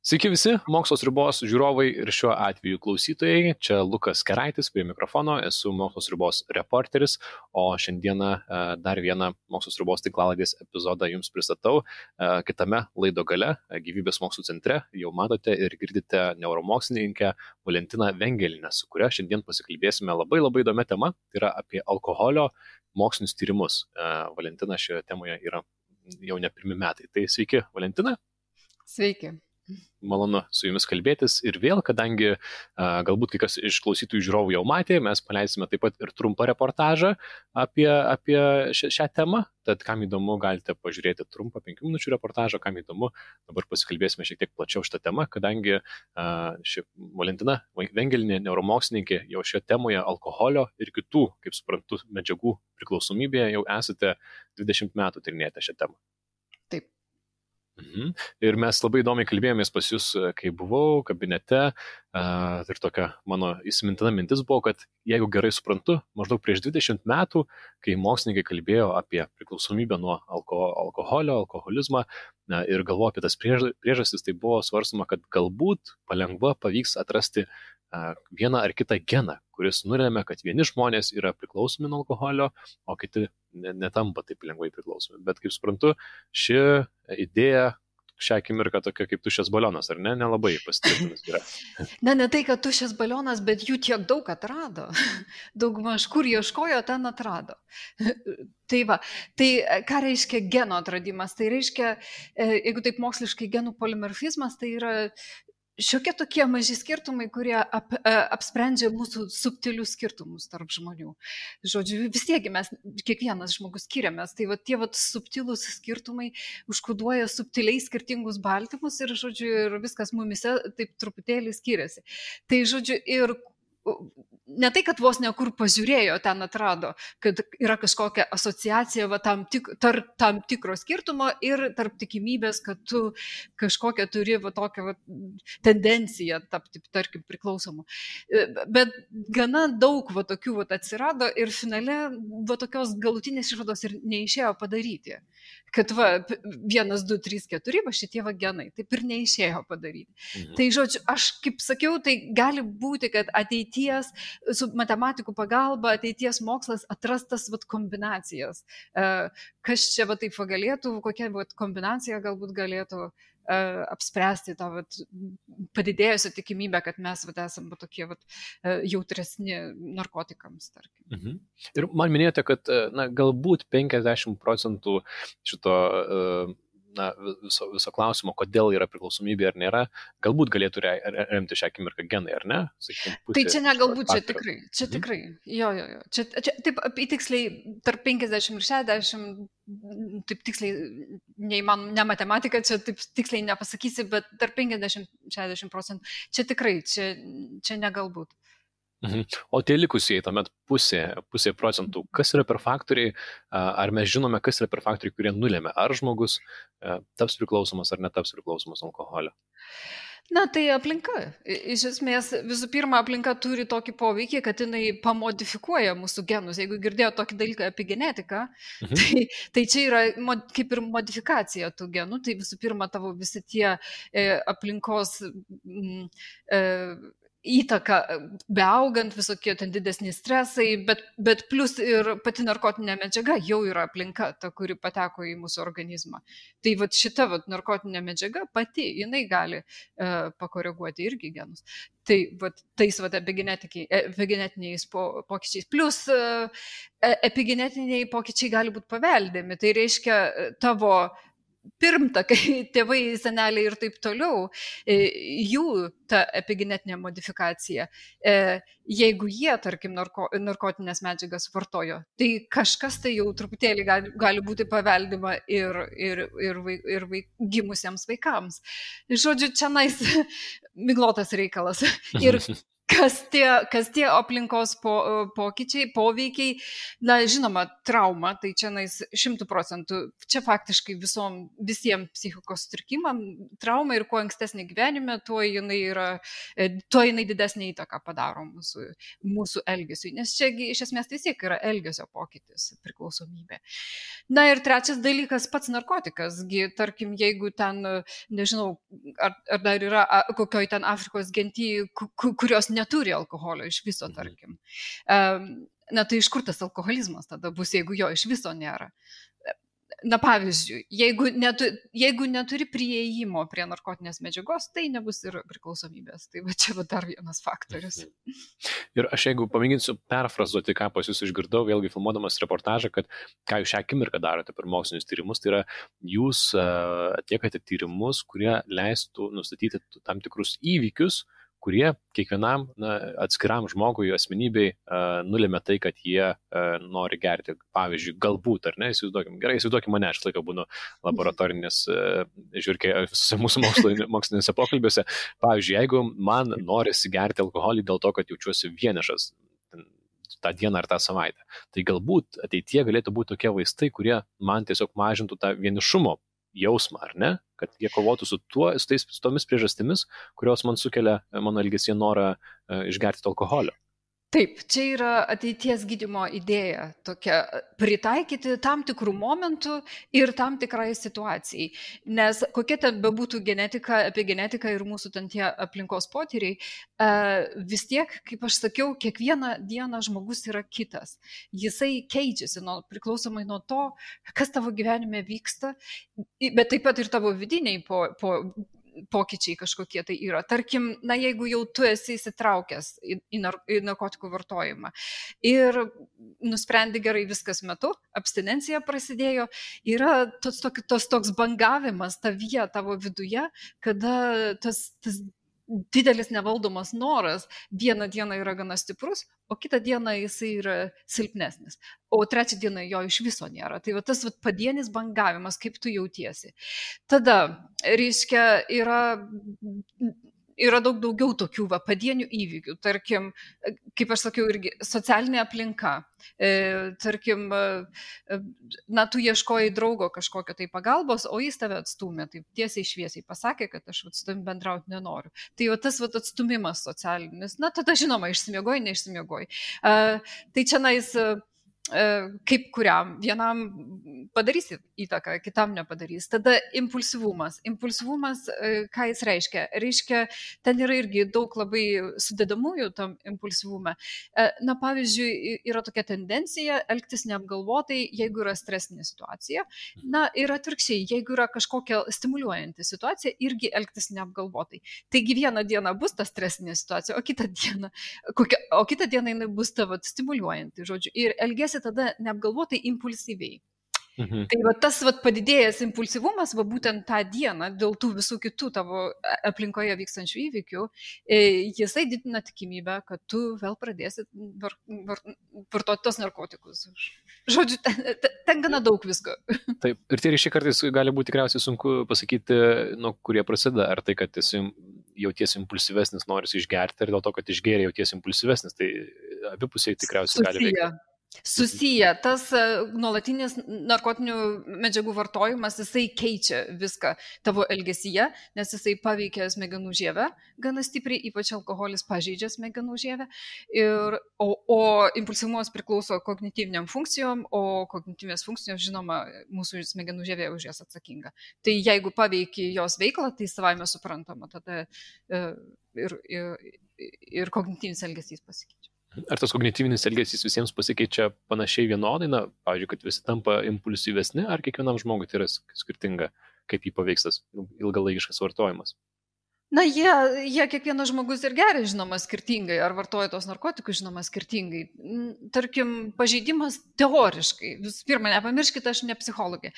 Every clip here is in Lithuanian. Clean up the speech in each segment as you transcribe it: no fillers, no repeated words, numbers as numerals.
Sveiki visi, Mokslo sriubos žiūrovai ir šiuo atveju klausytojai. Čia Lukas Keraitis prie mikrofono, esu Mokslo sriubos reporteris, o šiandieną dar vieną Mokslo sriubos tinklalaidės epizodą jums pristatau. Kitame laido gale, Gyvybės mokslų centre, jau matote ir girdite neuromokslininkę Valentiną Vengelinę, su kuria šiandien pasikalbėsime labai įdomią temą, tai yra apie alkoholio mokslinius tyrimus. Valentina šioje temoje yra jau ne pirmi metai. Tai sveiki, Valentina. Sveiki. Malonu su jumis kalbėtis ir vėl, kadangi galbūt kai kas iš klausytojų žiūrovų jau matė, mes paleisime taip pat ir trumpą reportažą apie šią temą, tad kam įdomu, galite pažiūrėti trumpą 5 minučių reportažą, kam įdomu, dabar pasikalbėsime šiek tiek plačiau šitą temą, kadangi ši Valentina Vengelinė, neuromokslininkė, jau šioje temoje alkoholio ir kitų, kaip suprantu, medžiagų priklausomybėje jau esate 20 metų tyrinėjate šią temą. Taip. Ir mes labai įdomiai kalbėjomės pas jūs, kai buvau kabinete, ir tokia mano įsimintina mintis buvo, kad jeigu gerai suprantu, maždaug prieš 20 metų, kai mokslininkai kalbėjo apie priklausomybę nuo alkoholio, alkoholizmą ir galvojo apie tas priežastis, tai buvo svarstama, kad galbūt palengva pavyks atrasti vieną ar kitą geną, kuris nulėmė, kad vieni žmonės yra priklausomi nuo alkoholio, o kiti netampa taip lengvai priklausomi. Bet kaip suprantu, ši idėja šią akimirką tokia kaip tuščias balionas, ar ne? Nelabai pasitvirtinus yra. Ne tai, kad tuščias balionas, bet jų tiek daug atrado. Daugmaž kur ieškojo, ten atrado. Tai va, tai ką reiškia geno atradimas? Tai reiškia, jeigu taip moksliškai genų polimorfizmas, tai yra šiokie tokie maži skirtumai, kurie apsprendžia mūsų subtilius skirtumus tarp žmonių. Žodžiu, vis tiek mes, kiekvienas žmogus skiriamės, tai va, tie va, subtilus skirtumai užkoduoja subtiliai skirtingus baltymus ir, žodžiu, ir viskas mumise taip truputėlį skiriasi. Tai, žodžiu, ir ne tai, kad vos nekur pažiūrėjo, ten atrado, kad yra kažkokia asociacija va, tarp tam tikro skirtumo ir tarp tikimybės, kad tu kažkokią turi va, tokią va, tendenciją tapti, tarkim, priklausomu. Bet gana daug va, tokių va, atsirado ir finale va, tokios galutinės išvados ir neišėjo padaryti. Kad va, 1, 2, 3, 4, va šitie va genai, taip ir neišėjo padaryti. Tai žodžiu, aš kaip sakiau, tai gali būti, kad ateities su matematikų pagalba ateities mokslas atrastas vat, kombinacijas. Kas čia va, taip va, galėtų, kokia va, kombinacija galbūt galėtų apspręsti tą vat, padidėjusią tikimybę, kad mes vat, esame tokie vat, jautresni narkotikams, tarkim. Ir man minėjote, kad galbūt 50% šito viso klausimo, kodėl yra priklausomybė ar nėra, galbūt galėtų remti šią akimirką genai, ar ne? Sakykim, tai čia ne galbūt, čia tikrai. Jo. Čia taip tiksliai tarp 50 ir 60, taip tiksliai, ne matematika, čia taip tiksliai nepasakysi, bet tarp 50-60%, čia tikrai, čia ne galbūt. O tie likusieji, tuomet pusė procentų, kas yra per faktoriai, ar mes žinome, kas yra per faktoriai, kurie nulėmė, ar žmogus taps priklausomas ar netaps priklausomas nuo alkoholio? Na, tai aplinka. Iš esmės, visų pirma, aplinka turi tokį poveikį, kad jinai pamodifikuoja mūsų genus. Jeigu girdėjo tokį dalyką apie genetiką, tai čia yra kaip ir modifikacija tų genų. Tai visų pirma, tavo visi tie aplinkos įtaka beaugant, visokie ten didesni stresai, bet plus ir pati narkotinė medžiaga jau yra aplinka, ta, kuri pateko į mūsų organizmą. Tai vat šita vat narkotinė medžiaga pati, jinai gali pakoreguoti irgi genus. Tai vat tais vat epigenetiniais pokyčiais. Plus epigenetiniai pokyčiai gali būti paveldimi. Tai reiškia tavo pirmtakai, tėvai, seneliai ir taip toliau, jų ta epigenetinė modifikacija, jeigu jie, tarkim, narkotinės medžiagas vartojo, tai kažkas tai jau truputėlį gali būti paveldima ir gimusiems vaikams. Žodžiu, čia miglotas reikalas. Ir Kas tie aplinkos pokyčiai, poveikiai, na, žinoma, trauma, tai čia 100%, čia faktiškai visiems psichikos sutrikimam trauma ir kuo ankstesnė gyvenime, tuo jinai didesnė įtaką padaro mūsų elgesiui, nes čia iš esmės vis tiek yra elgesio pokytis, priklausomybė. Na ir trečias dalykas, pats narkotikas, tarkim, jeigu ten, nežinau, ar dar yra kokioj ten Afrikos genty, kurios neturi alkoholio iš viso, tarkim. Na tai iš kur tas alkoholizmas tada bus, jeigu jo iš viso nėra? Na pavyzdžiui, jeigu neturi prieėjimo prie narkotinės medžiagos, tai nebus ir priklausomybės. Tai va čia va dar vienas faktorius. Ir aš jeigu pamėginsiu perfrazuoti, ką pas jūs išgirdau, vėlgi filmuodamas reportažą, kad ką jūs šią akimirką darote per mokslinius tyrimus, tai yra jūs atliekate tyrimus, kurie leistų nustatyti tam tikrus įvykius, kurie kiekvienam atskiram žmogui, asmenybei nulėmė tai, kad jie nori gerti. Pavyzdžiui, galbūt, ar ne, įsivaizduokim mane, aš laiką būnu laboratorinės žiūrkiai visose mūsų mokslinėse pokalbiuose. Pavyzdžiui, jeigu man norisi gerti alkoholį dėl to, kad jaučiuosi vienišas tą dieną ar tą savaitę, tai galbūt ateityje galėtų būti tokie vaistai, kurie man tiesiog mažintų tą vienišumo jausmą, ar ne? Kad jie kovotų su tomis priežastimis, kurios man sukelia mano elgesyje norą išgerti alkoholio. Taip, čia yra ateities gydymo idėja tokia, pritaikyti tam tikrų momentų ir tam tikrai situacijai. Nes kokia ten bebūtų apie genetiką ir mūsų ten tie aplinkos potyriai, vis tiek, kaip aš sakiau, kiekvieną dieną žmogus yra kitas. Jisai keičiasi priklausomai nuo to, kas tavo gyvenime vyksta, bet taip pat ir tavo vidiniai pokyčiai kažkokie tai yra. Tarkim, na jeigu jau tu esi įsitraukęs į narkotikų vartojimą ir nusprendi gerai viskas metu, abstinencija prasidėjo, yra toks bangavimas tavyje, tavo viduje, kada tas didelis nevaldomas noras vieną dieną yra gana stiprus, o kitą dieną jisai yra silpnesnis, o trečią dieną jo iš viso nėra. Tai va tas padienis bangavimas, kaip tu jautiesi. Tada, reiškia, yra daug daugiau tokių padienių įvykių. Tarkim, kaip aš sakiau, irgi socialinė aplinka. Tarkim, na, tu ieškojai draugo kažkokio tai pagalbos, o jis tave atstūmė, taip tiesiai šviesiai pasakė, kad aš su tavim bendrauti nenoriu. Tai va tas atstumimas socialinis, na, tada žinoma, išsimiegoji, neišsimiegoji. Tai čia kaip kuriam, vienam padarys įtaką, kitam nepadarys. Tada impulsyvumas. Impulsyvumas, ką jis reiškia? Reiškia, ten yra irgi daug labai sudedamųjų tam impulsyvume. Na, pavyzdžiui, yra tokia tendencija elgtis neapgalvotai, jeigu yra stresinė situacija. Na, ir atvirkščiai, jeigu yra kažkokia stimuliuojanti situacija, irgi elgtis neapgalvotai. Taigi vieną dieną bus ta stresinė situacija, o kitą dieną jinai bus tavo stimuliuojanti, žodžiu. Ir elgesi tada neapgalvotai impulsyviai. Tai tas padidėjęs impulsyvumas būtent tą dieną dėl tų visų kitų tavo aplinkoje vykstančių įvykių, jisai didina tikimybę, kad tu vėl pradėsi vartoti tos narkotikus. Žodžiu, ten gana daug visko. Taip, ir tie ryšiai kartais gali būti tikriausiai sunku pasakyti, nuo kurie prasideda. Ar tai, kad esi jautiesi impulsyvesnis, norisi išgerti, ir dėl to, kad išgėrė jautiesi impulsyvesnis, tai abipusiai tikriausiai gali veikti. Susiję. Tas nuolatinis narkotinių medžiagų vartojimas, jisai keičia viską tavo elgesyje, nes jisai paveikia smegenų žievę gana stipriai, ypač alkoholis pažeidžia smegenų žievę. O impulsyvumas priklauso kognityviniam funkcijom, o kognityvinės funkcijos, žinoma, mūsų smegenų žievė už jas atsakinga. Tai jeigu paveikia jos veiklą, tai savaime suprantama, tada ir kognityvinis elgesys pasikeičia. Ar tas kognityvinis elgesys visiems pasikeičia panašiai vienodai, na, pavyzdžiui, kad visi tampa impulsyvesni, ar kiekvienam žmogui tai yra skirtinga, kaip jį paveiks tas ilgalaikiškas vartojimas? Na, jie kiekvienas žmogus ir geria, žinoma, skirtingai, ar vartoja tos narkotikus, žinoma, skirtingai. Tarkim, pažeidimas teoriškai, visų pirma, nepamirškite, aš ne psichologė,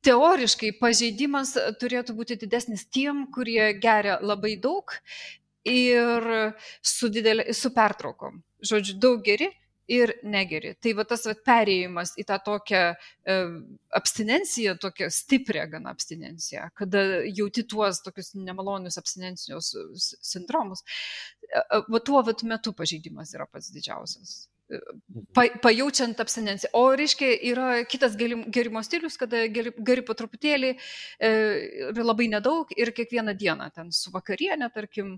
teoriškai pažeidimas turėtų būti didesnis tiem, kurie geria labai daug ir su pertraukom. Žodžiu, daug geri ir negeri. Tai va tas perėjimas į tą tokią abstinenciją, tokią stiprią gana abstinenciją, kada jauti tuos tokius nemalonius abstinencijos sindromus, va tuo metu pažeidimas yra pats didžiausias. Pajaučiant abstinenciją. O reiškia, yra kitas gerimo stilius, kada geri po truputėlį, labai nedaug ir kiekvieną dieną ten su vakarienė, tarkim,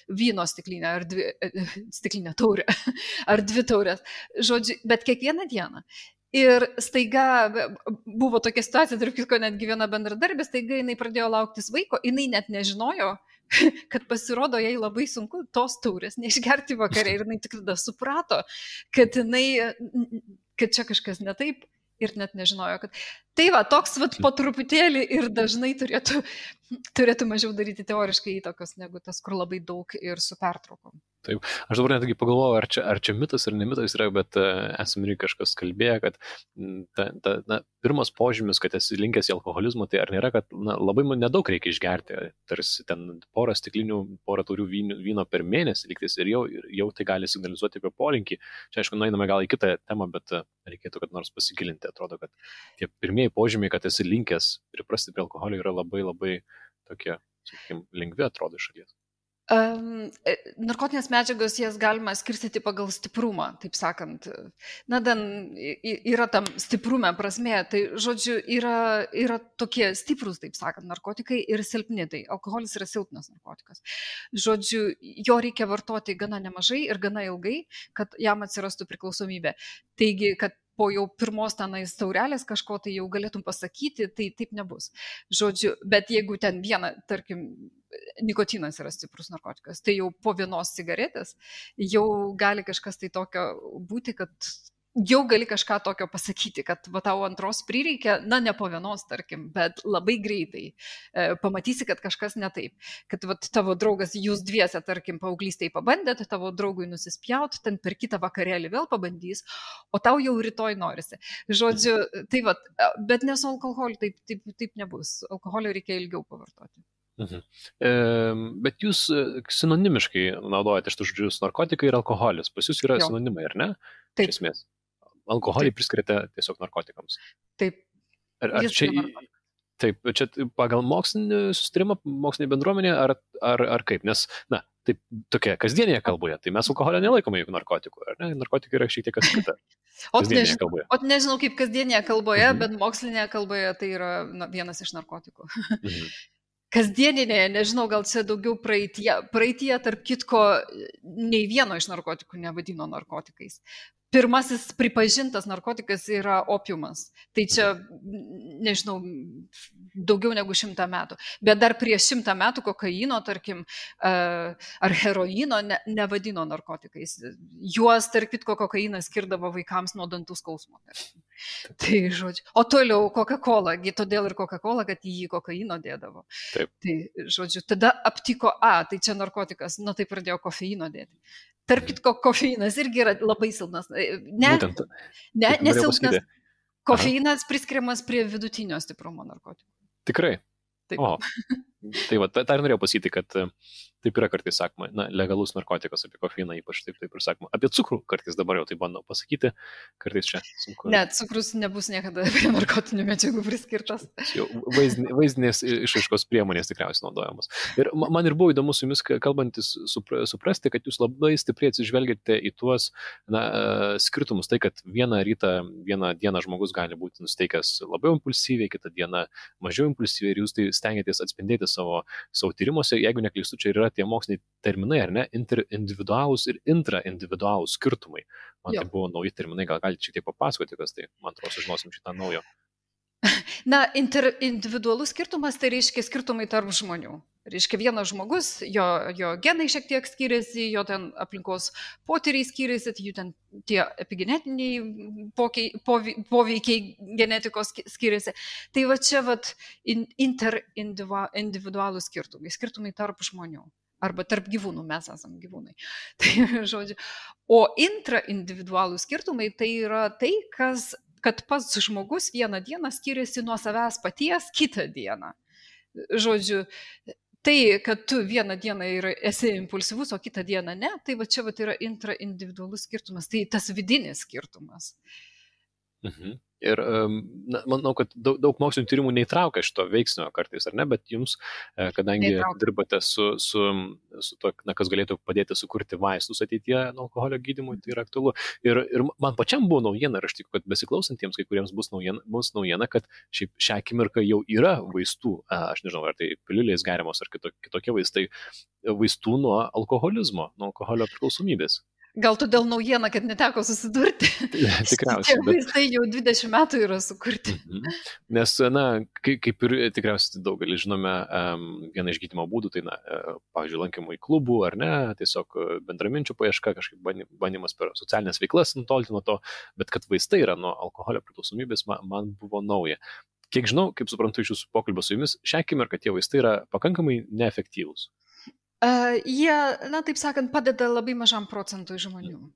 vyno stiklinė ar stiklinė taurė, ar 2 taurės. Žodžiu, bet kiekvieną dieną. Ir staiga buvo tokia situacija, tarp kitko, netgi viena bendradarbė, staiga jinai pradėjo lauktis vaiko, jinai net nežinojo, kad pasirodo jai labai sunku tos taurės neišgerti vakare ir jinai tik tada suprato, kad čia kažkas ne taip ir net nežinojo, kad tai va, toks po truputėlį ir dažnai turėtų mažiau daryti teoriškai įtakos negu tas, kur labai daug ir su pertraukom. Taip, aš dabar netgi pagalvojau, ar čia mitas ar ne mitas yra, bet esame ir kažkas kalbėjo, kad pirmas požymis, kad esi linkęs į alkoholizmą, tai ar nėra, kad labai nedaug reikia išgerti, tarsi ten porą stiklinių, porą taurių vyno per mėnesį lygtis ir jau tai gali signalizuoti apie polinkį. Čia aišku, nueiname gal į kitą temą, bet reikėtų kad nors pasigilinti. Atrodo, kad tie pirmieji požymiai, kad esi linkęs priprasti prie alkoholio, yra labai labai tokie, sakykime, lengvi atrodo iš šalies. Narkotinės medžiagos jas galima skirstyti pagal stiprumą, taip sakant. Yra tam stiprume prasmė, tai žodžiu yra tokie stiprus, taip sakant, narkotikai ir silpni, tai alkoholis yra silpnas narkotikas. Žodžiu, jo reikia vartoti gana nemažai ir gana ilgai, kad jam atsirastų priklausomybė. Taigi, kad po jau pirmos tenais taurelės kažko tai jau galėtum pasakyti, tai taip nebus. Žodžiu, bet jeigu ten viena, tarkim, nikotinas yra stiprus narkotikas, tai jau po vienos cigaretės jau gali kažkas tai tokio būti, kad jau gali kažką tokio pasakyti, kad va tau antros prireikia, ne po vienos, tarkim, bet labai greitai pamatysi, kad kažkas ne taip. Kad va tavo draugas, jūs dviese, tarkim, paauglystėje pabandėt, tavo draugui nusispjaut, ten per kitą vakarėlį vėl pabandys, o tau jau rytoj norisi. Žodžiu, tai va, bet ne su alkoholiu taip nebus. Alkoholio reikia ilgiau pavartoti. Bet jūs sinonimiškai naudojate šitus žodžius narkotikai ir alkoholis. Pas jūs yra sinonimai, ar ne? Taip. Iš esmės. Alkoholį priskiriate tiesiog narkotikams. Taip. Taip, čia pagal mokslinį sustarimą, mokslinį bendruomenę, ar kaip? Nes, taip, tokia kasdienėje kalboje, tai mes alkoholio nelaikome juk narkotikų, ar ne? Narkotikai yra šiek tiek kas kita. Nežinau kaip kasdienėje kalboje, bet mokslinėje kalboje tai yra vienas iš narkotikų. Kasdieninėje, nežinau, gal čia daugiau praeitie, tarp kitko, nei vieno iš narkotikų nevadino narkotikais. Pirmasis pripažintas narkotikas yra opiumas. Tai čia, nežinau, daugiau negu 100 metų. Bet dar prieš 100 metų kokaino, tarkim, ar heroino nevadino narkotikais. Juos, tarp kitko, kokainas skirdavo vaikams nuo dantų skausmo. Tai žodžiu. O toliau Coca-Cola, todėl ir Coca-Cola, kad į jį kokaino dėdavo. Taip. Tai žodžiu, tada aptiko, tai čia narkotikas, tai pradėjo kofeino dėti. Tarp kitko, kofeinas irgi yra labai silpnas. Nesilpnas. Kofeinas priskiriamas prie vidutinio stiprumo narkotikų. Tikrai? Taip. O, tai va, tai norėjau pasakyti, kad taip yra kartais sakoma, legalus narkotikas apie kofeiną, ypač taip ir sakoma. Apie cukrų kartais dabar jau tai bandau pasakyti, kartais čia sunku. Ne, cukrus nebus niekada prie narkotinių medžiagų priskirtas. Vaizdinės išraiškos priemonės tikriausiai naudojamos. Ir man ir buvo įdomu su jumis kalbantis suprasti, kad jūs labai stipriai atsižvelgiate į tuos skirtumus. Tai, kad vieną dieną žmogus gali būti nusteikęs labiau impulsyviai, kitą dieną mažiau impulsyviai ir jūs tai stengiatės atspindėti savo tyrimuose. Jeigu neklystu, čia yra tie moksliniai terminai, ar ne? Interindividualūs ir intraindividualūs skirtumai. Man tai buvo nauji terminai, gal galite šiek tiek papasakoti, kas tai, man atrodo, sužinosim šitą naujo. Interindividualus skirtumas tai reiškia skirtumai tarp žmonių. Reiškia vienas žmogus, jo genai šiek tiek skiriasi, jo ten aplinkos potyriai skiriasi, jų ten tie epigenetiniai poveikiai genetikos skiriasi. Tai va čia interindividualūs skirtumai tarp žmonių. Arba tarp gyvūnų, mes esam gyvūnai. Tai žodžiu. O intraindividualūs skirtumai tai yra tai, kad pats žmogus vieną dieną skiriasi nuo savęs paties kitą dieną. Žodžiu, Tai, kad tu vieną dieną esi impulsyvus, o kitą dieną ne, tai va čia va yra intraindividualus skirtumas, tai tas vidinis skirtumas. Mhm. Ir manau, kad daug mokslinių tyrimų neįtraukia šito veiksnio kartais, ar ne, bet jums, kadangi dirbate su to, kas galėtų padėti sukurti vaistus ateityje nuo alkoholio gydymui, tai yra aktualu. Ir man pačiam buvo naujiena, ir aš tikiu, kad besiklausantiems kai kuriems bus naujiena, kad šią akimirką jau yra vaistų, aš nežinau, ar tai piliulės geriamos, ar kitokie vaistai, vaistų nuo alkoholizmo, nuo alkoholio priklausomybės. Gal todėl naujiena, kad neteko susidurti. Tikriausiai. Tie vaistai jau 20 metų yra sukurti. Nes, kaip ir tikriausiai daugelis žinome, vieną iš gydymo būdų, tai, pavyzdžiui, lankymų į klubų, ar ne, tiesiog bendraminčių paieška, kažkaip bandymas per socialinės veiklas nutolti nuo to, bet kad vaistai yra nuo alkoholio priklausomybės, man buvo nauja. Kiek žinau, kaip suprantu iš jūsų pokalbio su jumis, šią akimirką tie vaistai yra pakankamai neefektyvūs. Jie, taip sakant, padeda labai mažam procentui žmonių.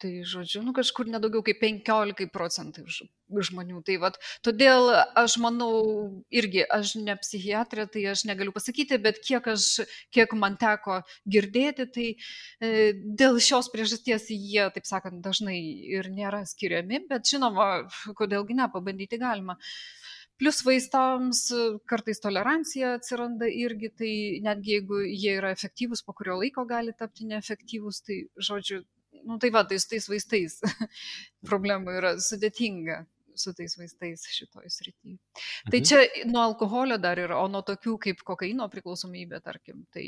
Tai, žodžiu, kažkur nedaugiau kaip 15% žmonių. Tai vat, todėl aš manau, irgi, aš ne psichiatrė, tai aš negaliu pasakyti, bet kiek man teko girdėti, tai dėl šios priežasties jie, taip sakant, dažnai ir nėra skiriami, bet žinoma, kodėlgi ne, pabandyti galima. Plus vaistams kartais tolerancija atsiranda irgi, tai netgi jeigu jie yra efektyvūs, po kurio laiko gali tapti neefektyvūs, tai žodžiu, tai va, tais vaistais problemų yra sudėtinga su tais vaistais šitoj srityje. Tai čia nuo alkoholio dar yra, o nuo tokių kaip kokaino priklausomybė, tarkim, tai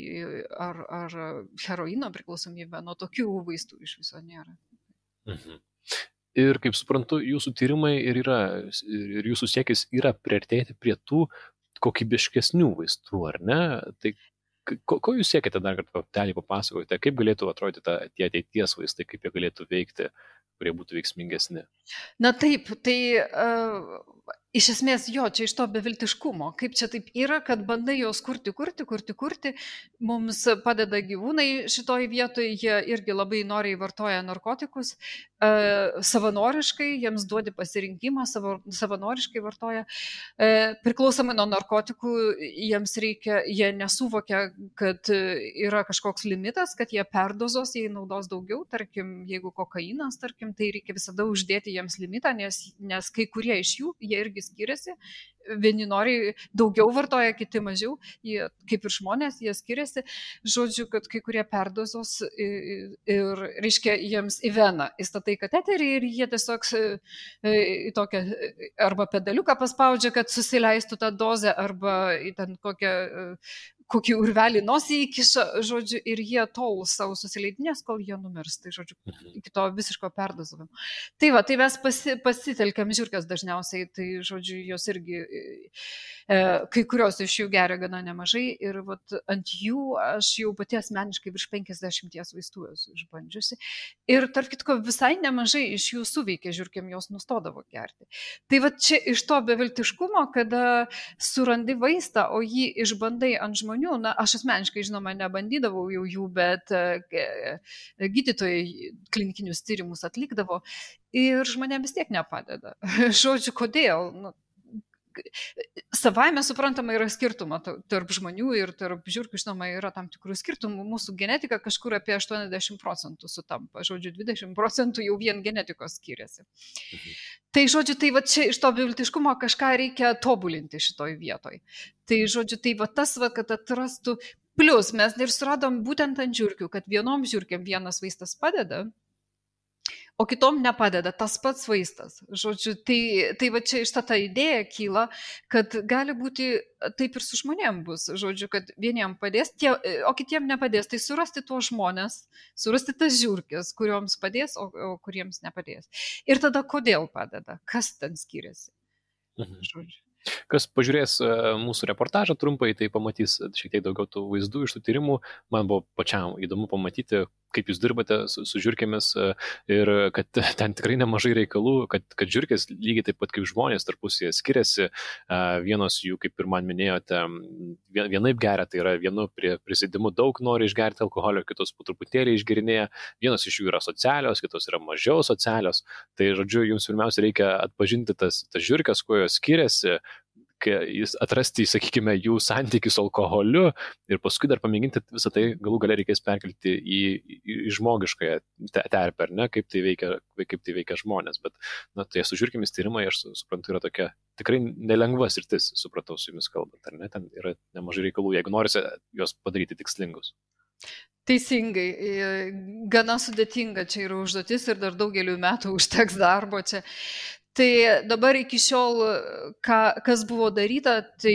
ar heroino priklausomybė, nuo tokių vaistų iš viso nėra. Ir kaip suprantu, jūsų tyrimai ir jūsų siekis yra priartėti prie tų kokybiškesnių vaistų, ar ne? Tai ko jūs siekite dar kartą papasakoti, kaip galėtų atrodyti tie ateities vaistai, kaip jie galėtų veikti, kurie būtų veiksmingesni? Na taip, tai iš esmės čia iš to beviltiškumo, kaip čia taip yra, kad bandai jos kurti, mums padeda gyvūnai šitoj vietoje, jie irgi labai noriai vartoja narkotikus, savanoriškai, jiems duodi pasirinkimą, savanoriškai vartoja, priklausomai nuo narkotikų, jiems reikia, jie nesuvokia, kad yra kažkoks limitas, kad jie perdozos, jei naudos daugiau, tarkim, jeigu kokainas, tarkim, tai reikia visada uždėti jiems limitą, nes kai kurie iš jų, jie irgi skiriasi, vieni nori daugiau vartoja, kiti mažiau, jie, kaip ir žmonės, jie skiriasi, žodžiu, kad kai kurie perdozos ir reiškia, jiems į veną įstatai kateterį ir jie tiesiog į tokią arba pedaliuką paspaudžia, kad susileistų tą dozę, arba į ten kokį urvelį nosį įkiša, žodžiu, ir jie tol savo susileidinės, kol jie numirs, tai žodžiu, iki to visiško perdozavimo. Tai va, tai mes pasitelkiam žiurkes dažniausiai, tai žodžiu, jos irgi, kai kurios iš jų geria gana nemažai ir vat, ant jų aš jau pati asmeniškai virš 50 vaistų esu išbandžiusi ir tarp kitko visai nemažai iš jų suveikė žiurkėm, jos nustodavo gerti. Tai va čia iš to beviltiškumo, kada surandi vaistą, o jį išbandai ant žmonių, aš asmeniškai, žinoma, nebandydavau jau jų, bet gydytojai klinikinius tyrimus atlikdavo ir žmonėms vis tiek nepadeda. Žodžiu, kodėl? Savaime suprantama yra skirtumą tarp žmonių ir tarp žiurkių, žinoma, yra tam tikrų skirtumų. Mūsų genetika kažkur apie 80% sutampa, žodžiu, 20% jau vien genetikos skiriasi. Tai, žodžiu, tai va čia iš to beviltiškumo kažką reikia tobulinti šitoj vietoj. Tai, žodžiu, tai va tas, va, kad atrastų, plus mes ir suradom būtent ant žiurkių, kad vienom žiurkiam vienas vaistas padeda, o kitom nepadeda tas pats vaistas. Žodžiu, tai va čia iš ta idėja kyla, kad gali būti taip ir su žmonėm bus. Žodžiu, kad vieniem padės, o kitiem nepadės. Tai surasti tuos žmonės, surasti tas žiurkės, kurioms padės, o kuriems nepadės. Ir tada kodėl padeda? Kas ten skiriasi? Žodžiu. Kas pažiūrės mūsų reportažą trumpai, tai pamatys šiek tiek daugiau tų vaizdų iš tų tyrimų. Man buvo pačiam įdomu pamatyti, kaip jūs dirbate su žiurkėmis ir kad ten tikrai nemažai reikalų, kad žiurkės lygiai taip pat kaip žmonės tarpusyje skiriasi. Vienos jų, kaip ir man minėjote, vienaip geria, tai yra vienu prisėdimu daug nori išgerti alkoholio, kitos po truputėlį išgerinėja. Vienos iš jų yra socialios, kitos yra mažiau socialios. Tai, žodžiu, jums pirmiausia reikia atpažinti tas žiurkės, kuo jos skiriasi, atrasti, sakykime, jų santykių su alkoholiu ir paskui dar pamėginti visą tai galų gale reikės perkelti į žmogiškąją terpę, ar ne, kaip tai veikia žmonės. Bet, tai su žiurkėmis tyrimai, aš suprantu, yra tokia tikrai nelengva sritis, supratau su jumis kalbant, ar ne, ten yra nemažai reikalų, jeigu norisi juos padaryti tikslingus. Teisingai, gana sudėtinga čia yra užduotis ir dar daugeliu metų užteks darbo čia. Tai dabar iki šiol, kas buvo daryta, tai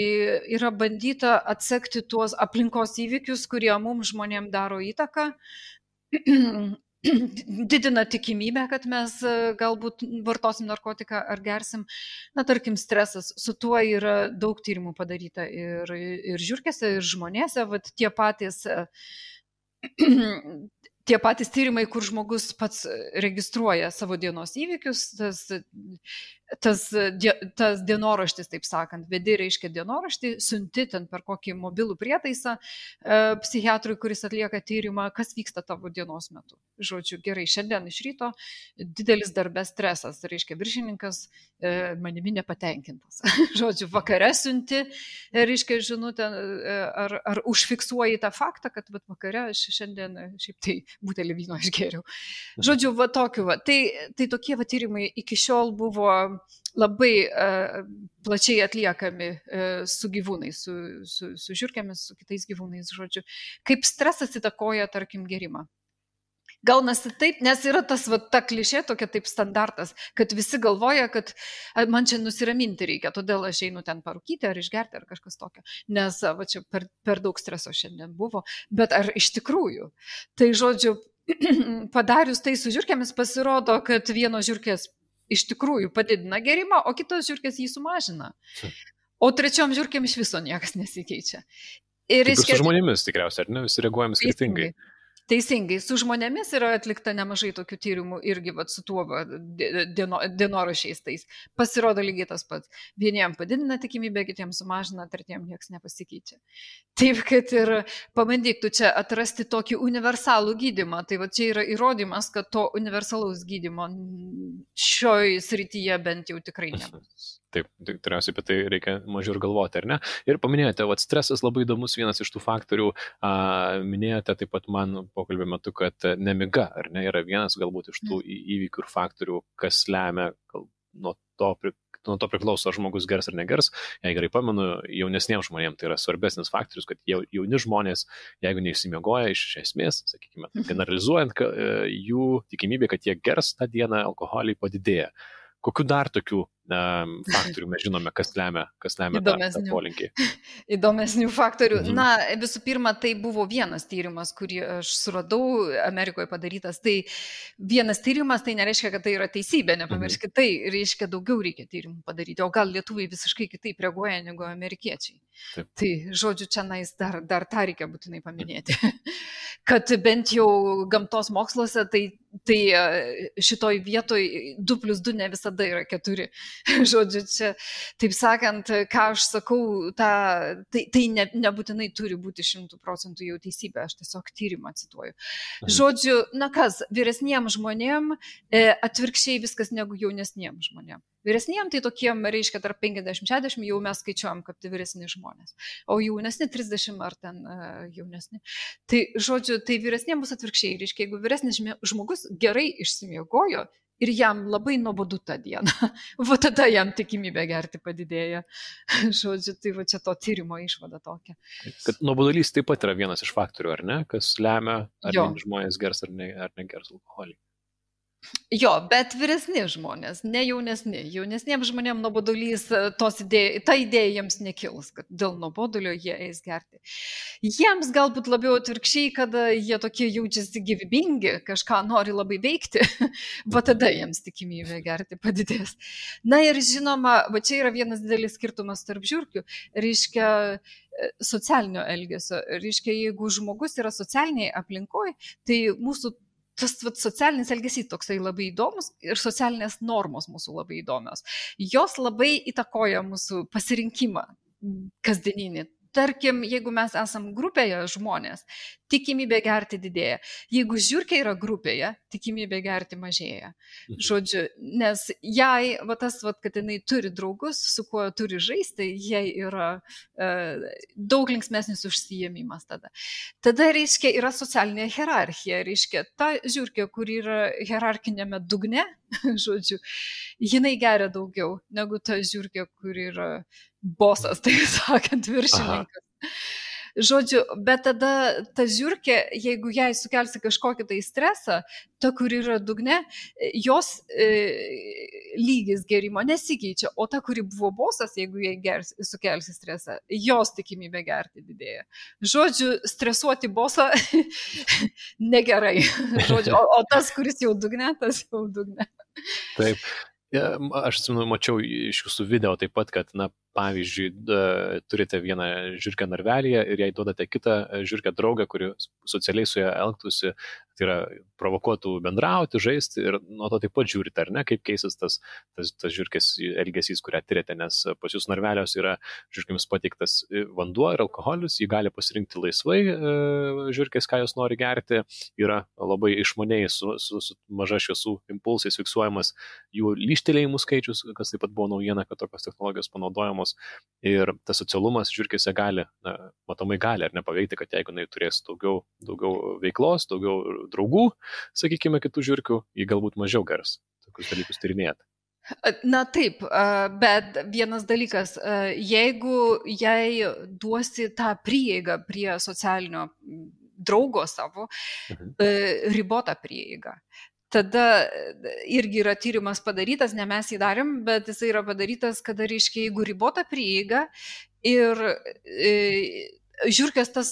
yra bandyta atsekti tuos aplinkos įvykius, kurie mums žmonėm daro įtaką, didina tikimybę, kad mes galbūt vartosim narkotiką ar gersim. Tarkim, stresas, su tuo yra daug tyrimų padaryta ir žiurkėse, ir žmonėse, tie patys tyrimai, kur žmogus pats registruoja savo dienos įvykius, tas dienoraštis, taip sakant, vedi reiškia dienoraštį, siunti ten per kokį mobilų prietaisą psichiatrui, kuris atlieka tyrimą, kas vyksta tavo dienos metu. Žodžiu, gerai, šiandien iš ryto didelis darbės stresas, reiškia viršininkas manimi nepatenkintas. Žodžiu, vakare siunti, reiškia žinutę, ar užfiksuoji tą faktą, kad vakare aš šiandien šiaip tai butelį vyno išgėriau. Žodžiu, tokiu. Tai tokie tyrimai iki šiol buvo labai plačiai atliekami su gyvūnais, su žiurkėmis, su kitais gyvūnais, žodžiu. Kaip stresas įtakoja, tarkim, gerimą. Gaunasi taip, nes yra ta klišė, tokia taip standartas, kad visi galvoja, kad man čia nusiraminti reikia, todėl aš einu ten parūkyti ar išgerti ar kažkas tokio, nes čia per daug streso šiandien buvo, bet ar iš tikrųjų? Tai žodžiu, padarius tai su žiurkėmis pasirodo, kad vienos žiurkės iš tikrųjų padidina gerimą, o kitos žiurkės jį sumažina. O trečiom žiurkėm iš viso niekas nesikeičia. Ir su žmonėmis tikriausiai, ar ne? Visi reaguojame skirtingai. Teisingai, su žmonėmis yra atlikta nemažai tokių tyrimų irgi su tuo dienoraščiais tais. Pasirodo lygiai tas pats. Vieniem padidina tikimybę, kitiems sumažina, tretiem niekas nepasikeičia. Taip, kad ir pabandyk tu čia atrasti tokį universalų gydymą. Tai čia yra įrodymas, kad to universalaus gydymo šioj srityje bent jau tikrai nebus. Taip, tikriausiai apie tai reikia mažiau ir galvoti, ar ne? Ir paminėjote, stresas labai įdomus, vienas iš tų faktorių, minėjote taip pat man pokalbio metu, kad nemiga, ar ne, yra vienas galbūt iš tų įvykių ir faktorių, kas lemia, nuo to priklauso, ar žmogus gers ar negers. Jei gerai pamenu, jaunesniems žmonėms tai yra svarbesnis faktorius, kad jauni žmonės, jeigu neišsimiegoja iš esmės, sakykime, generalizuojant, jų tikimybė, kad jie gers tą dieną, alkoholį padidėja. Kokių dar tokių faktorių mes žinome, kas lemia tą polinkį? Įdomesnių faktorių. Visų pirma, tai buvo vienas tyrimas, kurį aš suradau Amerikoje padarytas. Tai vienas tyrimas, tai nereiškia, kad tai yra teisybė, nepamirškit, tai reiškia daugiau reikia tyrimų padaryti. O gal lietuviai visiškai kitaip reaguoja negu amerikiečiai. Taip. Tai žodžiu, čia dar tą reikia būtinai paminėti. Kad bent jau gamtos moksluose, tai šitoj vietoj 2+2 ne visada yra 4. Žodžiu, čia, taip sakant, ką aš sakau, tai nebūtinai turi būti 100% jau teisybė, aš tiesiog tyrimą cituoju. Žodžiu, vyresniems žmonėm atvirkščiai viskas negu jaunesniems žmonėm. Vyresniem tai tokiem, reiškia, tarp 50-60 jau mes skaičiuojam, kad tai vyresni žmonės. O jaunesni 30 ar ten jaunesni. Tai, žodžiu, tai vyresniem bus atvirkščiai. Reiškia, jeigu vyresnis žmogus gerai išsimiegojo ir jam labai nuobodu tą dieną, tada jam tikimybė gerti padidėja. Žodžiu, tai čia to tyrimo išvada tokia. Kad nuobodulys taip pat yra vienas iš faktorių, ar ne? Kas lemia, ar žmonės gers ar negers alkoholį. Jo, bet vyresni žmonės, ne jaunesni. Jaunesniems žmonėms nuobodulys, ta idėja jiems nekils, kad dėl nuobodulio jie eis gerti. Jiems galbūt labiau atvirkščiai, kada jie tokie jaučiasi gyvybingi, kažką nori labai veikti, tada jiems tikimybė gerti padidės. Ir žinoma, čia yra vienas didelis skirtumas tarp žiurkių, reiškia socialinio elgesio. Reiškia, jeigu žmogus yra socialiniai aplinkoje, tai mūsų tas socialinis elgesys toksai labai įdomus ir socialinės normos mūsų labai įdomios. Jos labai įtakoja mūsų pasirinkimą kasdieninį. tarkim, jeigu mes esam grupėje žmonės, tikimybė gerti didėja. Jeigu žiurkė yra grupėje, tikimybė gerti mažėja. Žodžiu, nes jai, kad jinai turi draugus, su kuo turi žaisti, jai yra daug linksmesnis užsiėmimas tada. Tada, reiškia, yra socialinė hierarchija, reiškia, ta žiurkė, kur yra hierarchinėme dugne, žodžiu, jinai geria daugiau negu ta žiurkė, kur yra bosas, tai sakant, viršininkas. Žodžiu, bet tada ta žiurkė, jeigu jai sukelsi kažkokį tai stresą, ta, kur yra dugne, jos lygis gerimo nesikeičia, o ta, kuri buvo bosas, jeigu jai sukelsi stresą, jos tikimybė gerti didėja. Žodžiu, stresuoti bosą negerai. Žodžiu, o tas, kuris jau dugne, tas jau dugne. Taip. Aš atsimenu, mačiau iš jūsų video taip pat, kad, pavyzdžiui, turite vieną žiurkę narvelyje ir jai duodate kitą žiurkę draugą, kuri socialiai su ją elgtųsi, tai yra provokuotų bendrauti, žaisti ir nuo to taip pat žiūrite, ar ne, kaip keisis tas žiurkės elgesys, kurią tyrėte, nes pas jūs narvelios yra žiurkėms pateiktas vanduo ir alkoholis, jį gali pasirinkti laisvai žiurkės, ką jos nori gerti, yra labai išmaniai su maža šviesų impulsais fiksuojamas jų lyštelėjimų skaičius, kas taip pat buvo naujiena, kad tokios technologijos panaudojamos. Ir tas socialumas žiurkėse gali, matomai gali ar nepaveikti, kad jeigu jinai turės daugiau veiklos, daugiau draugų, sakykime, kitų žiurkių, jį galbūt mažiau gers tokius dalykus tyrinėti. Na taip, bet vienas dalykas, jeigu jai duosi tą prieigą prie socialinio draugo savo, ribotą prieigą, tada irgi yra tyrimas padarytas, ne mes jį darėm, bet jis yra padarytas, kada, reiškia, jeigu ribota prieiga ir žiurkės tas,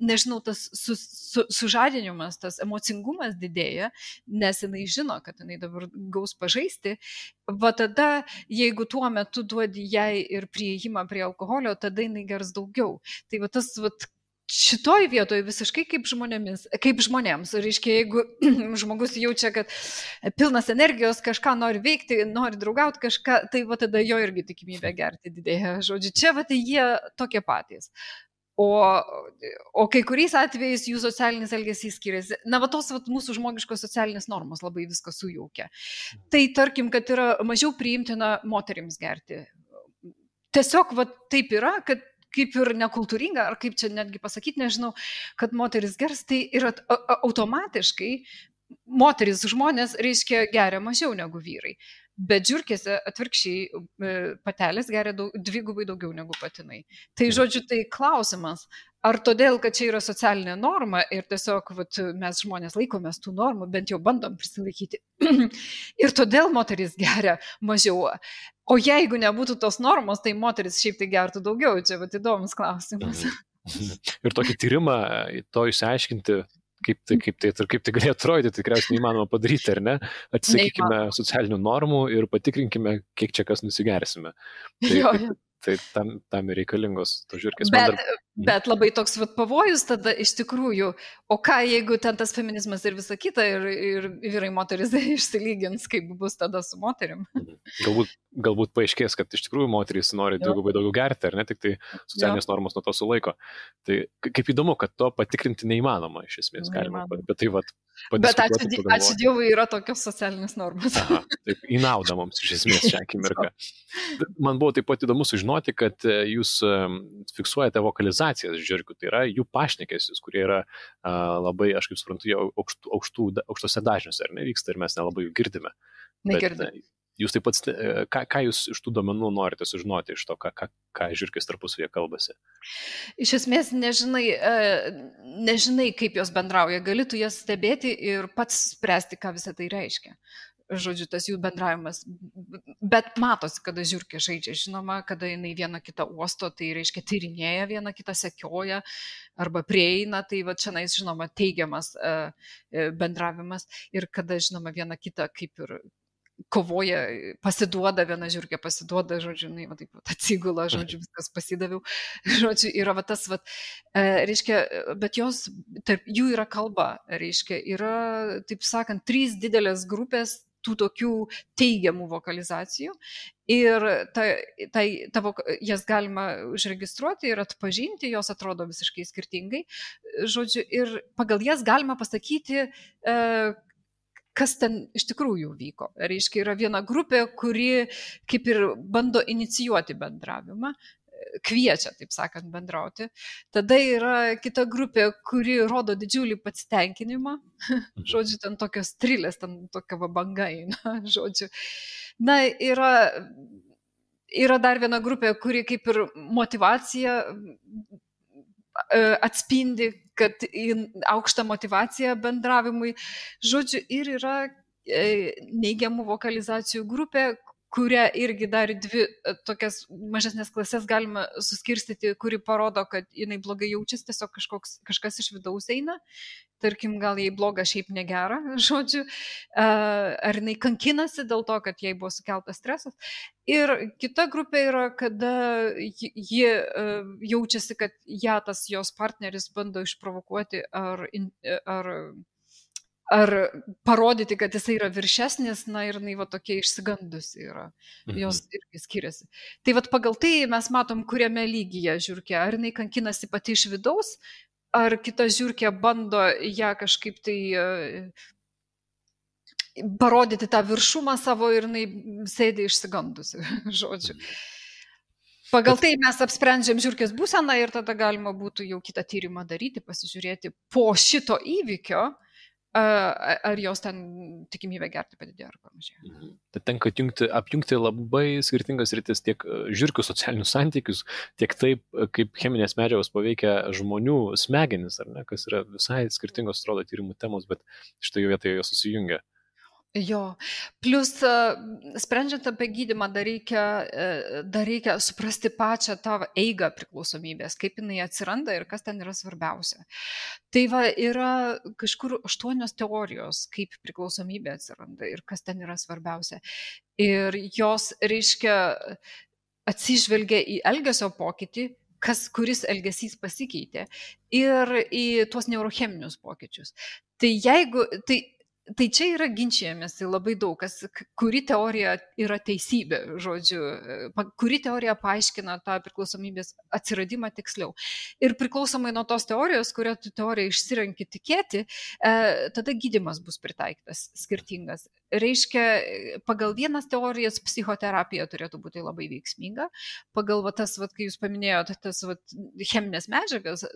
nežinau, tas sužadinimas, tas emocingumas didėja, nes jinai žino, kad jinai dabar gaus pažaisti, va tada, jeigu tuo metu duodi jai ir prieimą prie alkoholio, tada jinai gers daugiau. Tai va tas, šitoj vietoje visiškai kaip žmonėms. Reiškia, jeigu žmogus jaučia, kad pilnas energijos, kažką nori veikti, nori draugauti kažką, tai va tada jo irgi tikimybė gerti didėja. Žodžiu, čia va tai jie tokie patys. O kai kuriais atvejais jų socialinis elgesys skiriasi. Na, va tos mūsų žmogiškos socialinės normos labai viską sujaukia. Tai tarkim, kad yra mažiau priimtina moterims gerti. Tiesiog va taip yra, kad kaip ir nekultūringa, ar kaip čia netgi pasakyti, nežinau, kad moteris gers, tai yra automatiškai moteris žmonės, reiškia, geria mažiau negu vyrai. Bet žiurkėse atvirkščiai patelės geria dvigubai daugiau negu patinai. Tai žodžiu, tai klausimas, ar todėl, kad čia yra socialinė norma ir tiesiog mes žmonės laikomės tų normų, bent jau bandom prisilaikyti. Ir todėl moteris geria mažiau. O jeigu nebūtų tos normos, tai moteris šiaip tai gertų daugiau. Čia įdomus klausimas. Ir tokį tyrimą to išsiaiškinti, kaip tai galėjo atrodyti, tikriausiai neįmanoma padaryti, ar ne? Atsisakykime socialinių normų ir patikrinkime, kiek čia kas nusigersime. Tai tam reikalingos to žiurkės. Bet labai toks pavojus tada iš tikrųjų, o ką jeigu ten tas feminizmas ir visa kita ir vyrai moteris išsilygins, kaip bus tada su moterim? Galbūt paaiškės, kad iš tikrųjų moterys nori dvigubai daugiau gerti, ar ne, tik tai socialinės normos nuo to sulaiko. Tai kaip įdomu, kad to patikrinti neįmanoma iš esmės, galima, bet tai Bet ačiū Dievui yra tokios socialinės normos. Aha, taip, į naudą mums iš esmės šią akimirką. Man buvo taip pat įdomu sužinoti, kad jūs fiksuojate vokalizacijas žiurkių, tai yra jų pašnekesius, kurie yra labai, aš kaip suprantu, aukštose dažniuose, ar nevyksta ir mes nelabai jų girdime. Negirdime. Jūs taip pat, ką jūs iš tų duomenų norite sužinoti iš to, ką žiurkės tarpusavėje kalbasi? Iš esmės nežinai, kaip jos bendrauja, gali tu jas stebėti ir pats spręsti, ką visą tai reiškia. Žodžiu, tas jų bendravimas. Bet matosi, kada žiurkė žaidžia, žinoma, kada jinai vieną kitą uosto, tai reiškia tyrinėja, vieną kitą sekioja arba prieina, tai va čia, žinoma, teigiamas bendravimas ir kada, žinoma, vieną kitą kaip ir kovoja, pasiduoda, viena žiurkė pasiduoda, žodžiu, va taip atsigula, žodžiu, viskas pasidaviau, žodžiu, yra va tas, reiškia, bet tarp jų yra kalba, reiškia, yra, taip sakant, 3 didelės grupės tų tokių teigiamų vokalizacijų. Ir jas galima užregistruoti ir atpažinti, jos atrodo visiškai skirtingai. Žodžiu, ir pagal jas galima pasakyti, kas ten iš tikrųjų vyko. Reiškia, yra viena grupė, kuri kaip ir bando inicijuoti bendravimą, kviečia, taip sakant, bendrauti. Tada yra kita grupė, kuri rodo didžiulį pasitenkinimą. Žodžiu, ten tokios trilės, ten tokia banga eina, žodžiu. Na, yra dar viena grupė, kuri kaip ir motyvacija atspindi, kad aukštą motyvaciją bendravimui. Žodžiu, ir yra neigiamų vokalizacijų grupė, kurią irgi dar dvi tokias mažesnės klasės galima suskirstyti, kuri parodo, kad jinai blogai jaučiasi, tiesiog kažkas iš vidaus eina. Tarkim, gal jai bloga, šiaip negera, žodžiu, ar jinai kankinasi dėl to, kad jai buvo sukeltas stresas. Ir kita grupė yra, kada ji jaučiasi, kad ją tas jos partneris bando išprovokuoti ar parodyti, kad jisai yra viršesnis, na ir jinai va tokia išsigandusi yra. Jos irgi skiriasi. Tai va pagal tai mes matom, kuriame lygyje žiurkė. Ar jinai kankinasi pati iš vidaus, ar kita žiurkė bando ją kažkaip tai parodyti tą viršumą savo ir jinai sėdi išsigandusi, žodžiu. Pagal tai mes apsprendžiam žiurkės būseną ir tada galima būtų jau kitą tyrimą daryti, pasižiūrėti po šito įvykio, ar jos ten tikimybė gerti padidėjo ar panašiai. Tai tenka apjungti labai skirtingas rytis, tiek žiurkių socialinius santykius, tiek taip, kaip cheminės medžiagos paveikia žmonių smegenis, ar ne, kas yra visai skirtingos, atrodo, tyrimų temos, bet štai vietoje jos susijungia. Jo, plus sprendžiant apie gydymą dar reikia suprasti pačią tą eigą priklausomybės, kaip jinai atsiranda ir kas ten yra svarbiausia. Tai va, yra kažkur 8 teorijos, kaip priklausomybė atsiranda ir kas ten yra svarbiausia. Ir jos, reiškia, atsižvelgia į elgesio pokytį, kuris elgesys pasikeitė, ir į tuos neurocheminius pokyčius. Tai čia yra ginčijamės labai daug, kuri teorija yra teisybė, žodžiu, kuri teorija paaiškina tą priklausomybės atsiradimą tiksliau. Ir priklausomai nuo tos teorijos, kurią tu teoriją išsirenki tikėti, tada gydymas bus pritaikytas skirtingas. Reiškia, pagal vienas teorijas psichoterapija turėtų būti labai veiksminga, pagal tas, kai jūs paminėjote, tas cheminės medžiagas,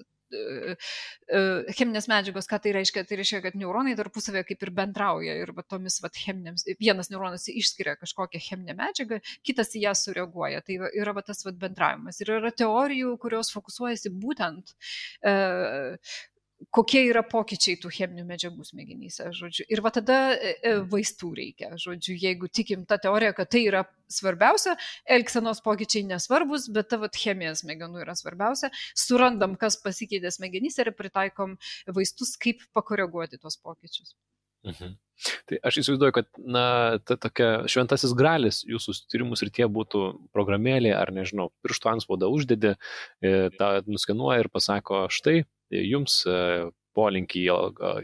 cheminės medžiagos, ką tai reiškia? Tai reiškia, kad neuronai tarpusavėje kaip ir bendrauja ir tomis cheminėms, vienas neuronas išskiria kažkokią cheminę medžiagą, kitas į ją sureaguoja. Tai yra tas bendravimas. Ir yra teorijų, kurios fokusuojasi būtent kokie yra pokyčiai tų cheminių medžiagų smegenyse, žodžiu. Ir tada vaistų reikia, žodžiu, jeigu tikim tą teoriją, kad tai yra svarbiausia, elgsenos pokyčiai nesvarbus, bet ta chemija smegenų yra svarbiausia, surandam, kas pasikeitė smegenyse ir pritaikom vaistus, kaip pakoreguoti tuos pokyčius. Tai aš įsivaizduoju, kad ta tokia šventasis gralis jūsų tyrimų srityje būtų programėlė, ar nežinau, pirštų antspaudą uždedi, tą nuskenuoja ir pasako, štai, jums polinkį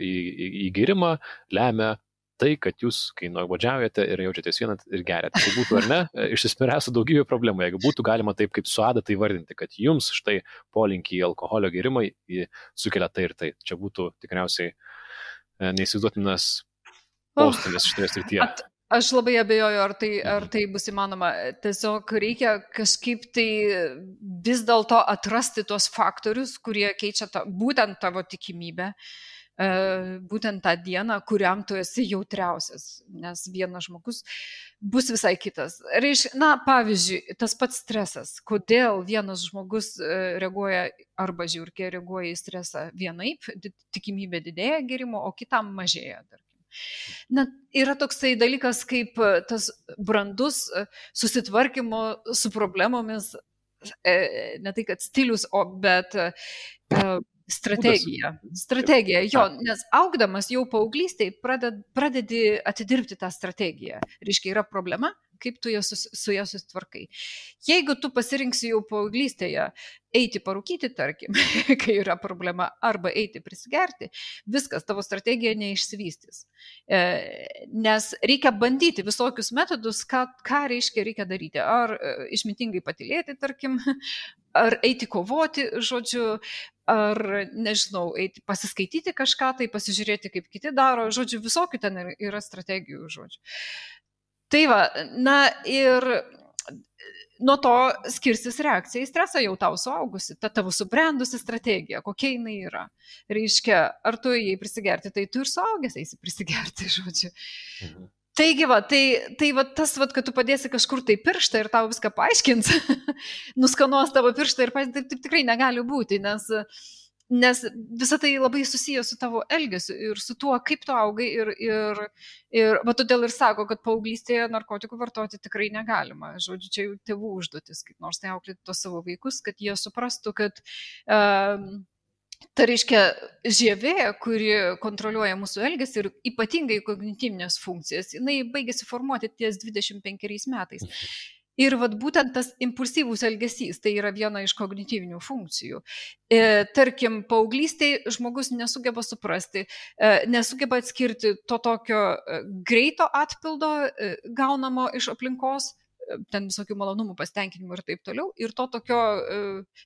į gėrimą lemia tai, kad jūs, kai nuobodžiaujate ir jaučiatės vieną ir geriate. Tai būtų, ar ne, išsispręstų daugybė problemų. Jeigu būtų galima taip kaip su adata įvardinti, kad jums štai polinkį į alkoholio gėrimą sukelia tai ir tai. Čia būtų tikriausiai neįsivaizduotinas postūmis šitoje srityje. Aš labai abejoju, ar tai bus įmanoma. Tiesiog reikia kažkaip tai vis dėlto atrasti tos faktorius, kurie keičia būtent tavo tikimybę, būtent tą dieną, kuriam tu esi jautriausias, nes vienas žmogus bus visai kitas. Pavyzdžiui, tas pats stresas. Kodėl vienas žmogus reaguoja arba žiurkė reaguoja į stresą vienaip, tikimybė didėja gėrimo, o kitam mažėja. Yra toksai dalykas kaip tas brandus susitvarkymo su problemomis, ne tai kad stilius, bet strategija. Strategija, jo, nes augdamas jau paauglystėj pradedi atidirbti tą strategiją. Reiškia, yra problema, kaip tu su ją susitvarkai. Jeigu tu pasirinksi jau paauglystėje eiti parūkyti, tarkim, kai yra problema, arba eiti prisigerti, viskas, tavo strategija neišsivystys. Nes reikia bandyti visokius metodus, ką reikia daryti. Ar išmintingai patylėti, tarkim, ar eiti kovoti, žodžiu, ar, nežinau, eiti pasiskaityti kažką, tai pasižiūrėti, kaip kiti daro, žodžiu, visokių ten yra strategijų, žodžiu. Tai va, na ir nuo to skirsis reakcija į stresą jau tau suaugusi, ta tavo subrendusi strategija, kokia jinai yra. Reiškia, ar tu jai prisigerti, tai tu ir suaugęs eisi prisigerti, žodžiu. Taigi va, tai va tas, va, kad tu padėsi kažkur tai pirštą ir tau viską paaiškins, nuskanuos tavo pirštą ir taip tikrai negali būti, nes visa tai labai susiję su tavo elgesiu ir su tuo, kaip tu augai ir va todėl ir sako, kad paauglystėje narkotikų vartoti tikrai negalima. Žodžiu, čia jau tėvų užduotis, kaip nors tai auklėti tos savo vaikus, kad jie suprastų, kad tai reiškia žievė, kuri kontroliuoja mūsų elgesį ir ypatingai kognityvinės funkcijas, jinai baigėsi formuoti ties 25 metais. Ir vat būtent tas impulsyvus elgesys, tai yra viena iš kognityvinių funkcijų. Tarkim, paauglystėje žmogus nesugeba suprasti, nesugeba atskirti to tokio greito atpildo gaunamo iš aplinkos, ten visokių malonumų, pasitenkinimų ir taip toliau, ir to tokio,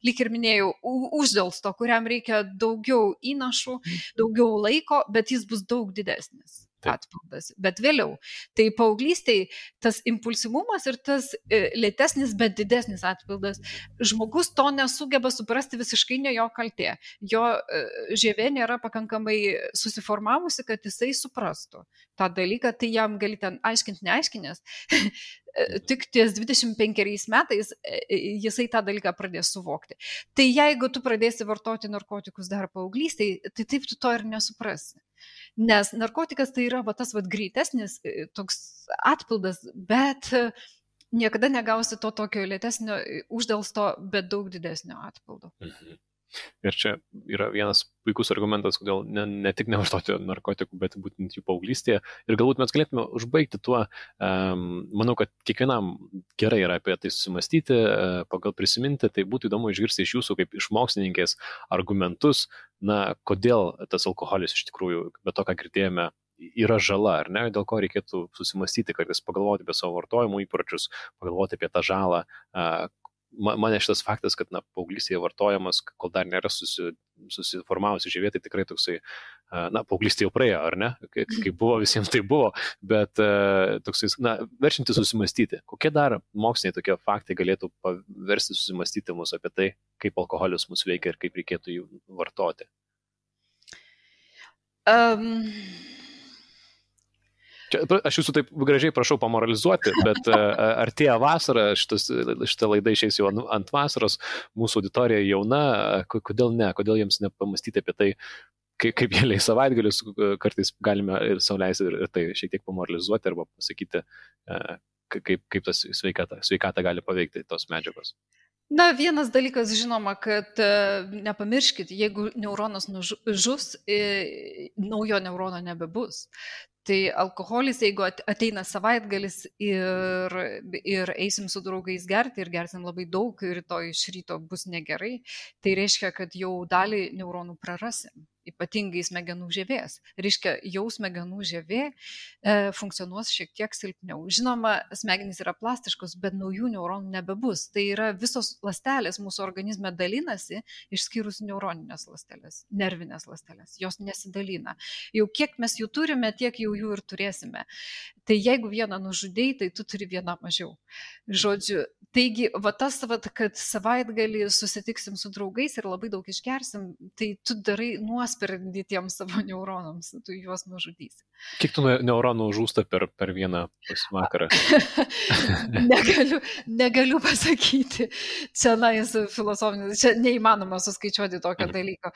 lyg ir minėjau, uždelsto, kuriam reikia daugiau įnašų, daugiau laiko, bet jis bus daug didesnis atpildas. Bet vėliau, tai paauglystėje tas impulsyvumas ir tas lėtesnis, bet didesnis atpildas, žmogus to nesugeba suprasti, visiškai ne jo kaltė. Jo žievė nėra pakankamai susiformavusi, kad jisai suprastų tą dalyką, tai jam gali ten aiškinti, neaiškinęs. Tik ties 25 metais jisai tą dalyką pradės suvokti. Tai jeigu tu pradėsi vartoti narkotikus dar paauglystėje, tai taip tu to ir nesuprasi. Nes narkotikas tai yra va, tas va, greitesnis toks atpildas, bet niekada negausi to tokio lėtesnio uždelsto, bet daug didesnio atpildo. Ir čia yra vienas puikus argumentas, kodėl ne tik nevartoti narkotikų, bet būtent jų paauglystėje. Ir galbūt mes galėtume užbaigti tuo, manau, kad kiekvienam gerai yra apie tai susimastyti, pagal prisiminti, tai būtų įdomu išgirsti iš jūsų kaip iš mokslininkės argumentus, na, kodėl tas alkoholis iš tikrųjų, be to, ką girdėjome, yra žala, ar ne, dėl ko reikėtų susimastyti, kartais pagalvoti apie savo vartojimo įpročius, pagalvoti apie tą žalą. Mane šitas faktas, kad paauglystėje vartojamas, kol dar nėra susiformavusi žievė, tai tikrai toksai, paauglystė jau praėjo, ar ne? Kaip buvo, visiems tai buvo, bet toksai, verčianti susimastyti. Kokie dar moksliniai tokie faktai galėtų paversti susimastyti mus apie tai, kaip alkoholis mus veikia ir kaip reikėtų jų vartoti? Čia, aš jūsų taip gražiai prašau pamoralizuoti, bet artėja vasara, šitą laidą išeis jau ant vasaros, mūsų auditorija jauna, kodėl ne, kodėl jiems nepamastyti apie tai, kaip jie leis savaitgalius, kartais galime ir sau leisti ir tai šiek tiek pamoralizuoti arba pasakyti, kaip tas sveikatą gali paveikti tos medžiagos. Na, vienas dalykas, žinoma, kad nepamirškit, jeigu neuronas žus, naujo neurono nebebus. Tai alkoholis, jeigu ateina savaitgalis ir eisim su draugais gerti ir gersim labai daug ir rytoj iš ryto bus negerai, tai reiškia, kad jau dalį neuronų prarasim, ypatingai smegenų žievės. Reiškia, jau smegenų žievė funkcionuos šiek tiek silpniau. Žinoma, smegenys yra plastiškos, bet naujų neuronų nebebus. Tai yra visos ląstelės mūsų organizme dalinasi, išskyrus neuroninės ląstelės, nervinės ląstelės. Jos nesidalina. Jau kiek mes jų turime, tiek jau jų ir turėsime. Tai jeigu vieną nužudėjai, tai tu turi vieną mažiau. Žodžiu, taigi, va tas, kad savaitgalį susitiksim su draugais ir labai daug išgersim, tai tu darai nuosprendį tiems savo neuronams, tu juos nužudysi. Kiek tų neuronų žūsta per vieną vakarą? Negaliu pasakyti. Čia filosofinis, čia neįmanoma suskaičiuoti tokio dalyko.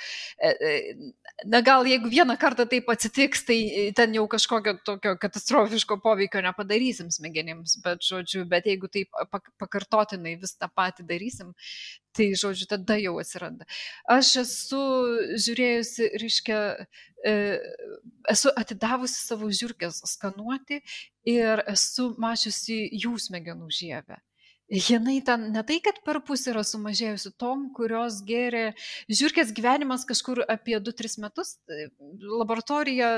Na gal jeigu vieną kartą taip atsitiks, tai ten jau kažkokio tokio katastrofiško poveikio nepadarysim smegenims, bet jeigu taip pakartotinai vis tą patį darysim, Tai, žodžiu, tada jau atsiranda. Aš esu žiūrėjusi, reiškia, esu atidavusi savo žiurkės skanuoti ir esu mačiusi jų smegenų žievę. Jinai ten ne tai, kad per pusę yra sumažėjusi tom, kurios gėrė žiurkės gyvenimas kažkur apie 2-3 metus. Laboratorija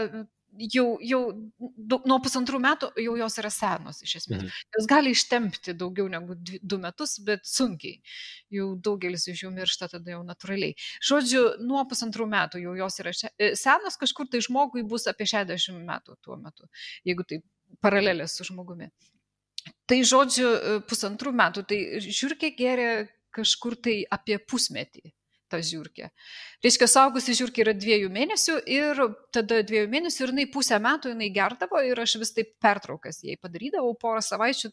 jau nuo 1,5 metų jau jos yra senos iš esmės. Jos gali ištempti daugiau negu 2 metus, bet sunkiai. Jau daugelis iš jų miršta tada jau natūraliai. Žodžiu, nuo 1,5 metų jau jos yra senos, kažkur tai žmogui bus apie 60 metų tuo metu, jeigu tai paralelės su žmogumi. Tai žodžiu, 1,5 metų, tai žiurkė gėrė kažkur tai apie pusmetį. Ta žiurkė. Reiškia, saugusi žiurkė yra 2 mėnesių ir tada 2 mėnesių ir jinai pusę metų jinai gerdavo ir aš vis taip pertraukas jai padarydavau, porą savaičių,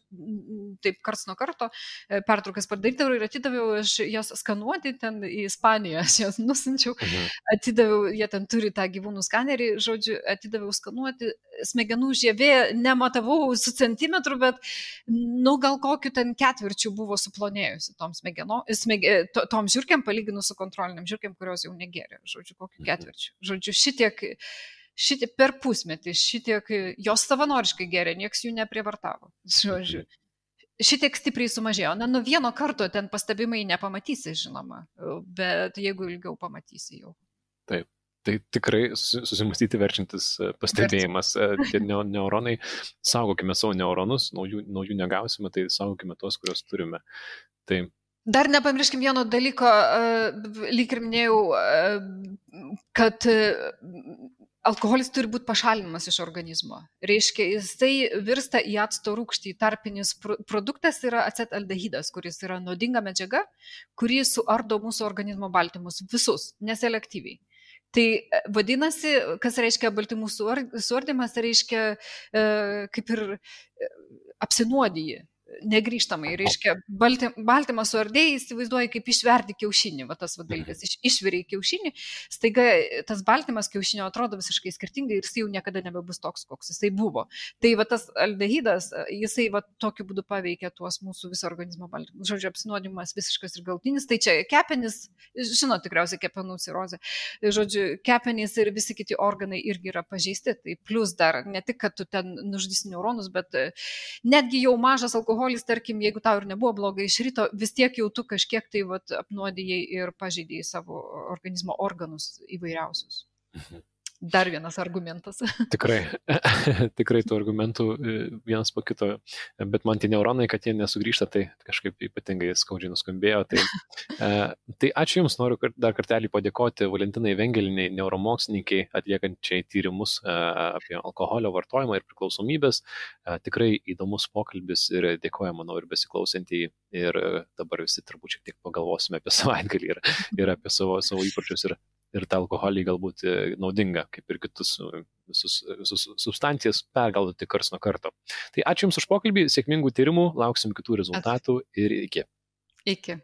taip karts nuo karto pertraukas padarydavau ir atidaviau aš jas skanuoti ten į Ispaniją, aš jas nusinčiau, atidaviau, jie ten turi tą gyvūnų skanerį, žodžiu, atidaviau skanuoti, smegenų žievė nematavau su centimetru, bet gal kokiu ten ketvirčiu buvo suplonėjusi tom žiurkėm palyginus su kontroliniam žiurkėm, kurios jau negėrė, žodžiu, kokiu ketvirčiu. Žodžiu, šitiek per pusmetį, šitiek jos savanoriškai gėrė, nieks jų neprievartavo. Žodžiu, šitiek stipriai sumažėjo. Na, nuo vieno karto ten pastebimai nepamatysi, žinoma, bet jeigu ilgiau pamatysi jau. Taip. Tai tikrai susimastyti verčiantis pastebėjimas. Tie neuronai, saugokime savo neuronus, naujų negausime, tai saugokime tos, kurios turime. Tai dar nepamirškim vieno dalyko, lyg ir minėjau, kad alkoholis turi būti pašalinamas iš organizmo. Reiškia, jisai virsta į acto rūgštį. Tarpinis produktas yra acetaldehidas, kuris yra nuodinga medžiaga, kuri suardo mūsų organizmo baltymus visus, neselektyviai. Tai vadinasi, kas reiškia baltymų suardymas, reiškia kaip ir apsinuodiji. Negrįžtamai, reiškia, baltymą suardėjai, įsivaizduoji, kaip išverdi kiaušinį, va tas dalykas, išveriai kiaušinį, staiga tas baltymas kiaušinio atrodo visiškai skirtingai ir jis jau niekada nebebus toks, koks jisai buvo. Tai va tas aldehidas, jisai va tokiu būdu paveikia tuos mūsų viso organizmo baltymus. Žodžiu, apsinuodimas visiškas ir galutinis, tai čia kepenys, žinot tikriausiai kepenų cirozė, žodžiu, kepenys ir visi kiti organai irgi yra pažeisti, tai plus dar ne tik, kad tu ten nužudysi neuronus, bet netgi jau mažas alkoholis, tarkim, jeigu tau ir nebuvo blogai iš ryto, vis tiek jau tu kažkiek tai apnuodijai ir pažeidėjai savo organizmo organus įvairiausius. Dar vienas argumentas. Tikrai tų argumentų vienas po kito, bet man tie neuronai, kad jie nesugrįžta, tai kažkaip ypatingai skaudžiai nuskambėjo. Tai ačiū Jums, noriu dar kartelį padėkoti Valentinai Vengeliniai, neuromokslininkai, atliekančiai tyrimus apie alkoholio vartojimą ir priklausomybės. Tikrai įdomus pokalbis ir dėkoju, manau, ir besiklausantį. Ir dabar visi turbūt šiek tiek pagalvosime apie savaitgalį ir apie savo įpročius ir tą alkoholį galbūt naudinga, kaip ir kitus visus substancijas pergalvoti karts nuo karto. Tai ačiū Jums už pokalbį, sėkmingų tyrimų, lauksim kitų rezultatų ir iki. Iki.